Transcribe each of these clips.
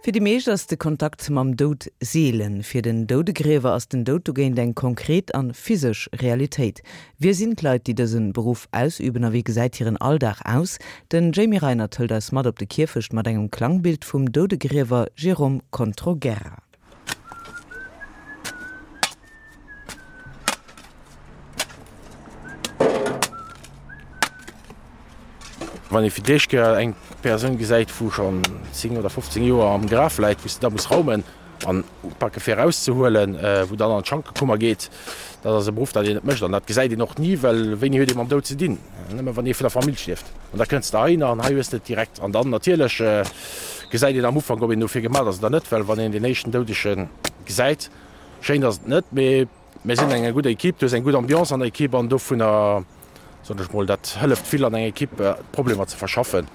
Fir déi meescht ass de Kontakt mam Doud seelen. Fir den Doudegriewer ass den Doud dogéint eng konkret an physesch Realitéit. Wie sinn d'Leit, déi dësen Beruff ausüben a wéi gesäit hiren Alldag aus? Den Jamie Reinert hëlt eis mat op de Kierfecht mat engem Klangbild vum Doudegriewer Jérôme Controguerra. Wann ee fir d'éischt Kéier eng Persoun gesäit, wou schonn 10 oder 15 Joer am Graf läit, wou s de da muss raumen an upake fir erauszehuelen, wou dann an d'Schankekummer geet, dat ass e Beruff, dat een net mécht an dat gesäit een och ni, well wéini huet ee mam Doud ze dinn? Nëmme wann ee vun der Famill stierft. An da kënns de heihinner an hei hues de et direkt. An dann natierlech gesäit een am Ufank, ob een dofir gemaach ass oder net, well wann een deen éischten Doudege gesäit, schéin ass et net, mee mir sinn eng gutt Equipe, du hues eng gutt Ambiance an der Equipe an dovunner, soen ech mol, dat hëlleft vill an enger Equipe d'Problemer ze verschaffen.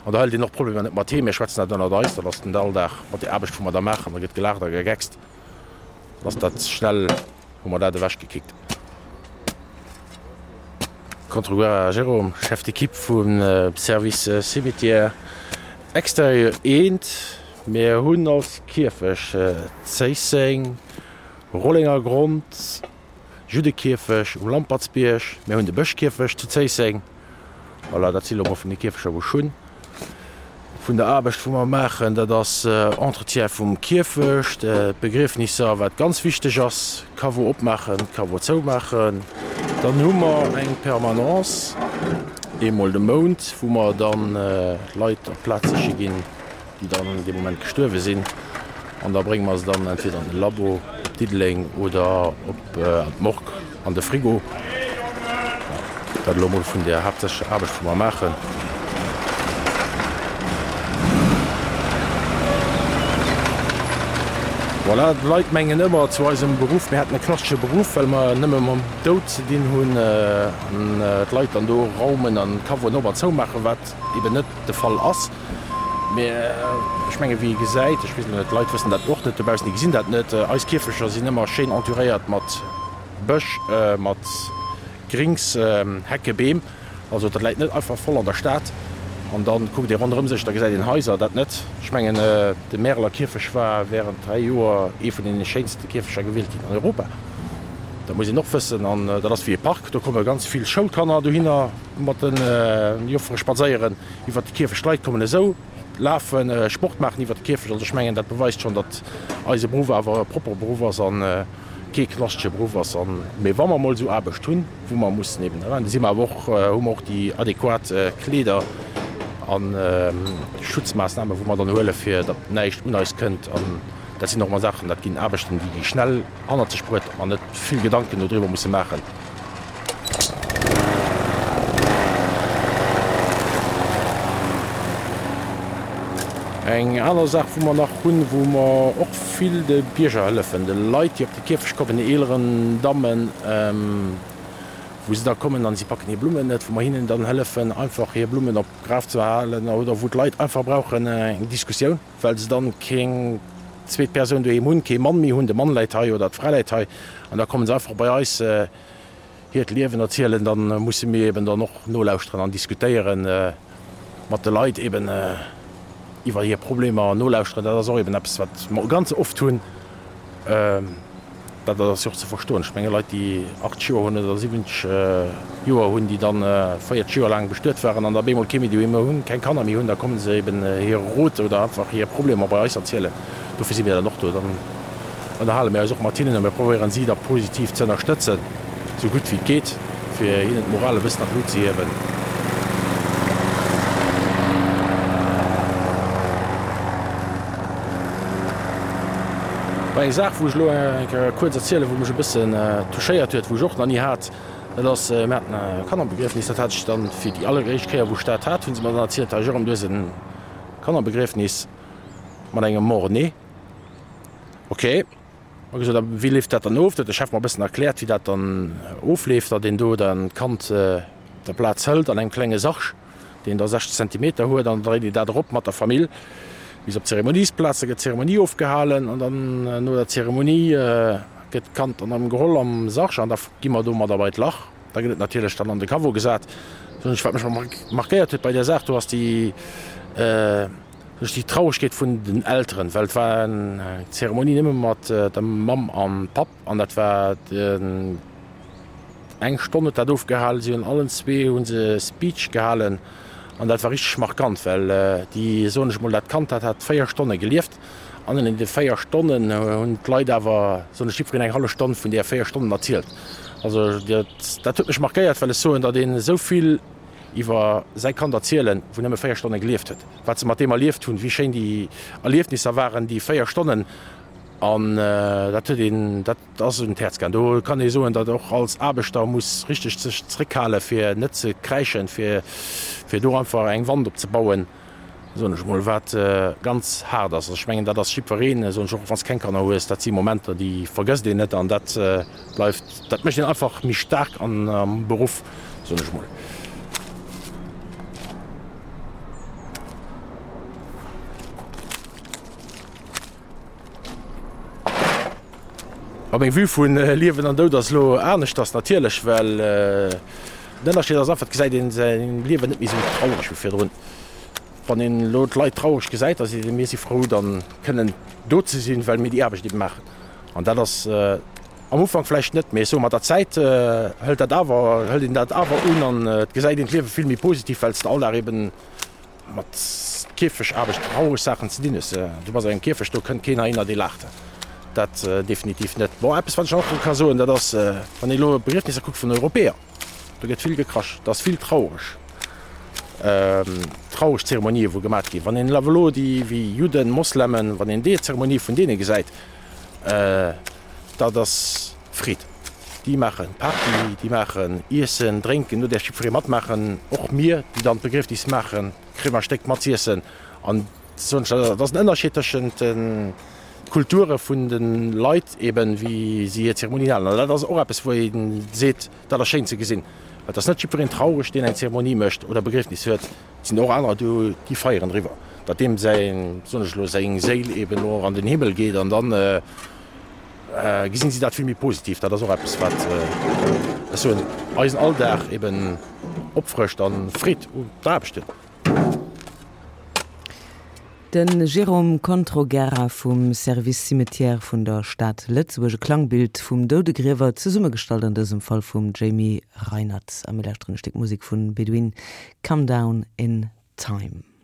An da hëlt een och d'Problemer net mat heem, mir schwätzen dat ënnert eis, dat ass den Alldag mat der Aarbecht wou mer da maachen, da gëtt gelaacht a gegeckst, dann ass dat schnell, hu mer dat ewechgekickt. Controguerra Jérôme, Chef d'équipe vum Service Cimetière Extérieur I. Mir hunn als Kierfecht Zéisseng, Rollengergrond, Juddekierfecht um Lampertsbierg, mir hunn de Bëschkierfecht zu Zéisseng. Voilà, dat si lo mol vun de Kierfechter wou ech hunn. Vun der Aarbecht wou mer maachen, dat ass Entretien vum Kierfecht, d'Begriefnisser, wat ganz wichteg ass, Caveau opmaachen, Caveau zoumaachen. Dann hu mer eng Permanence eemol de Mount, wou mer dann Leit op d'Plaz siche ginn, déi dann dee Moment gestuerwe sinn an da brénge mer se dann entweder an de Labo op Diddeleng oder op an d'Morgue an de Frigo. Dat elo mol vun der haaptsächlecher Aarbecht wou mer maachen. Voilà, d'Leit mengen ëmmer zu eisem Beruff, mir hätten e klassesche Beruff, well mer nëmme mam Doud ze dinn hunn an d'Leit dann do raumen an d'Caveauen op an zou maachen, wat eben net de Fall ass. Mee ech menge wéi ee gesäit, ech weess elo net, d'Leit wëssen dat och net dobaussen, déi gesinn dat net, eis Kierfecher sinn ëmmer schéin entouréiert mat Bësch, mat Grings, Hecke, Beem. Also dat läit net einfach voll an der Stad. An da kuckt ee ronderëm sech, da gesäit een Haiser, dat net. Ech mengen de Märeler Kierfech war während 3 Joer ee vun deene schéinste Kierfecher gewielt ginn an Europa. Dat muss een och wëssen. An dat ass wéi e Park, do komme ganz vill Schoulkanner dohinner mat de Joffere spadséieren. Iwwert de Kierfecht, d'Leit kommen esou lafen, Sport maachen iwwert de Kierfecht. Also ech mengen, dat beweist schonn, datt eise Beruff awer e proppere Beruff ass a kee knaschtege Beruff ass. An, mee wa mer emol esou Aarbecht hunn, wou mer mussen eben eran, da si mer awer och, hu mer och déi adequat Kleeder a Schutzmaassnamen, wou mer dann huele fir datt näischt un eis kënnt. An dat sinn och emmer Saachen, dat ginn Aarbechten, déi gi schnell hannert sech bruet, datt mer net vill Gedanken dodriwwer musse maachen. Eng aner Saach, wou mer nach hunn, wou mer och vill de Bierger hëllefen, de Leit, déi op de Kierfecht kommen, den eeleren Dammen, wou se da kommen an si packen hir Blummen net, wou mer hinnen dann hëllefen, einfach hir Blummen op d'Graf ze halen oder wou d'Leit einfach brauchen eng Diskussioun, well se dann keng zweet Persoun doheem hunn, kee Mann méi hunn, de Mann läit hei oder d'Fra läit hei an da komme se einfach bei eis hiert Liewen erzielen. Da musse mir eben dann och nolauschteren an diskutéieren mat de Leit eben iwwer hir Problemer nolauschteren. Dat ass och eben eppes, wat mer ganz oft hunn. Dat ass jo och ze verstoen. Ech menge Leit, déi 80 Joer hunn oder 70 Joer hunn, déi dann 40 Joer laang bestuet waren an da bemol kee méi doheem hunn, keng Kanner méi hunn, da komme se eben hire Rot oder einfach hir Problemer bei eis erzielen. Dofir si mir dann och do. Dann ënnerhale mir eis och mat hinnen a mir probéieren si da positiv ze ënnerstëtzen, esou gutt wéi et geet, fir hinnen d'Moral e bëssen an d'Lut ze hiewen. Eng Saach, wou ech elo eng Kéier kuerz erzielen, wou mech e bëssen touchéiert huet, wou ech och nach ni hat, dat ass, mir haten e Kannerbegriefnis, dat hat ech dann fir déi alleréischt Kéier, wou ech dat hat, hu se mer dann erzielt, Här Jérôme, du hues e Kannerbegriefnis mat engem Mort-né. Ok, hu gesot, a wéi leeft dat dann of? Da huet de Chef mer e bëssen erkläert, wéi dat dann ofleeft, datt een do dann d'Kand op der Plaz hëlt an engem klenge Sarg. deen da 60 Zentimeter huet, an da dréit een dat erop mat der Famill bis op d'Zeremoniesplaz. Da gëtt d'Zeremonie ofgehalen an dann no der Zeremonie gëtt d'Kand dann erëm geholl am Sarg an da gi mer domadder bei d'Lach. Da gëtt et natierlech dann an de Caveau gesat. Wat mech markéiert huet bei där Saach do ass déi. Duerch déi Trauregkeet vun den Elteren, well et war eng Zeremonie nëmme mat der Mamm an Papp an dat war den eng Stonn huet dat ofgehalen. Si hunn allen zwee hu se Speech gehalen an dat war richteg markant, well déi, soen ech mol, dat Kand dat hat 4 Stonne gelieft an an deene 4 Stonnen hunn d'Leit awer, soen ech, jiddwereen eng hallef Stonn vun deeër 4 Stonnen erzielt. Also dat dat huet mech markéiert, well ech soen, datt een esou vill iwwer säi Kand erzielen, wou nëmme 4 Stonne gelieft huet, wat se mat deem erlieft hunn, wéi schéin déi Erliefnisser waren, déi 4 Stonnen, an dat huet een, dat ass un d'Häerz gaangen. Do kann ee soen, datt och als Aarbechter muss richteg sech zréckhale fir net ze kräischen, fir fir do einfach eng Wand opzebauen, soen ech mol, wat ganz haart ass. Also ech mengen, dat ass jiddwereen, soen ech, och wann s keng Kanner hues, dat si Momenter, déi vergësst een net an dat bleift, dat mécht een einfach méi staark an am Beruff, soen ech mol. A meng Vue vu Liewen an Doud ass elo aneschters natierlech, well den Ënnerscheed ass einfach, et gesäit een säin Liewen net méi esou traureg wéi virdrun. Wann een elo d'Leit traureg gesäit, da seet een, mir si frou dann kënnen do ze sinn, well mir déi Aarbecht ebe maachen. An dat ass am Ufank vläicht net, mee ech soe mat der Zäit hëlt dat awer, hëlt een dat awer un an et gesäit een d'Liewe vill méi positiv, well s de all Dag eben Mat Kierfechaarbecht traureg Saachen ze dinn hues. Du bass an engem Kierfecht, do kënnt keen heihinner, dee laacht. Dat definitiv net. Bon, eppes wat ech och ka soen, dat ass, wann ee elo Begriefnisser kuckt vun Europäer, do gëtt vill gekrasch, dat ass vill traureg, traureg Zeremonië wou gemat ginn. Wann een awer elo déi wéi Judden, Moslemen, wann een déi Zeremonie vun deene gesäit, dat ass Freed. Déi maachen Party, déi maachen Iessen, Drénken, do däerf jiddweree matmaachen. Och mir, déi dann d'Begriefnis maachen, kréie mer e Stéck mat z'iessen. An soen ech, dat ass en Ënnerscheed tëschent de Kulture vun de Leit eben, wéi si hir Zeremonien halen. An dat ass och eppes, wou ee seet, dat ass schéin ze gesinn. Et ass net jiddwereen traureg, deen eng Zeremonie mécht oder Begriefnis huet. Et sinn och anerer do, déi feieren driwwer, datt deem säin, soen ech elo, seng Séil eben elo an den Himmel geet an dann, Gesinn si dat vill méi positiv. Dat ass och eppes, wat, ech soen, eisen Alldag eben opfrëscht a Freed un der Aarbecht huet. De Jérôme Controguerra vum Service Cimetière vun der Stad Lëtzebuerg. E Klangbild vum Doudegriewer, zesummegestallt an dësem Fall vum Jamie Reinert. A mir lauschteren e Stéck Musek vun Bedouin, Come Down in Time.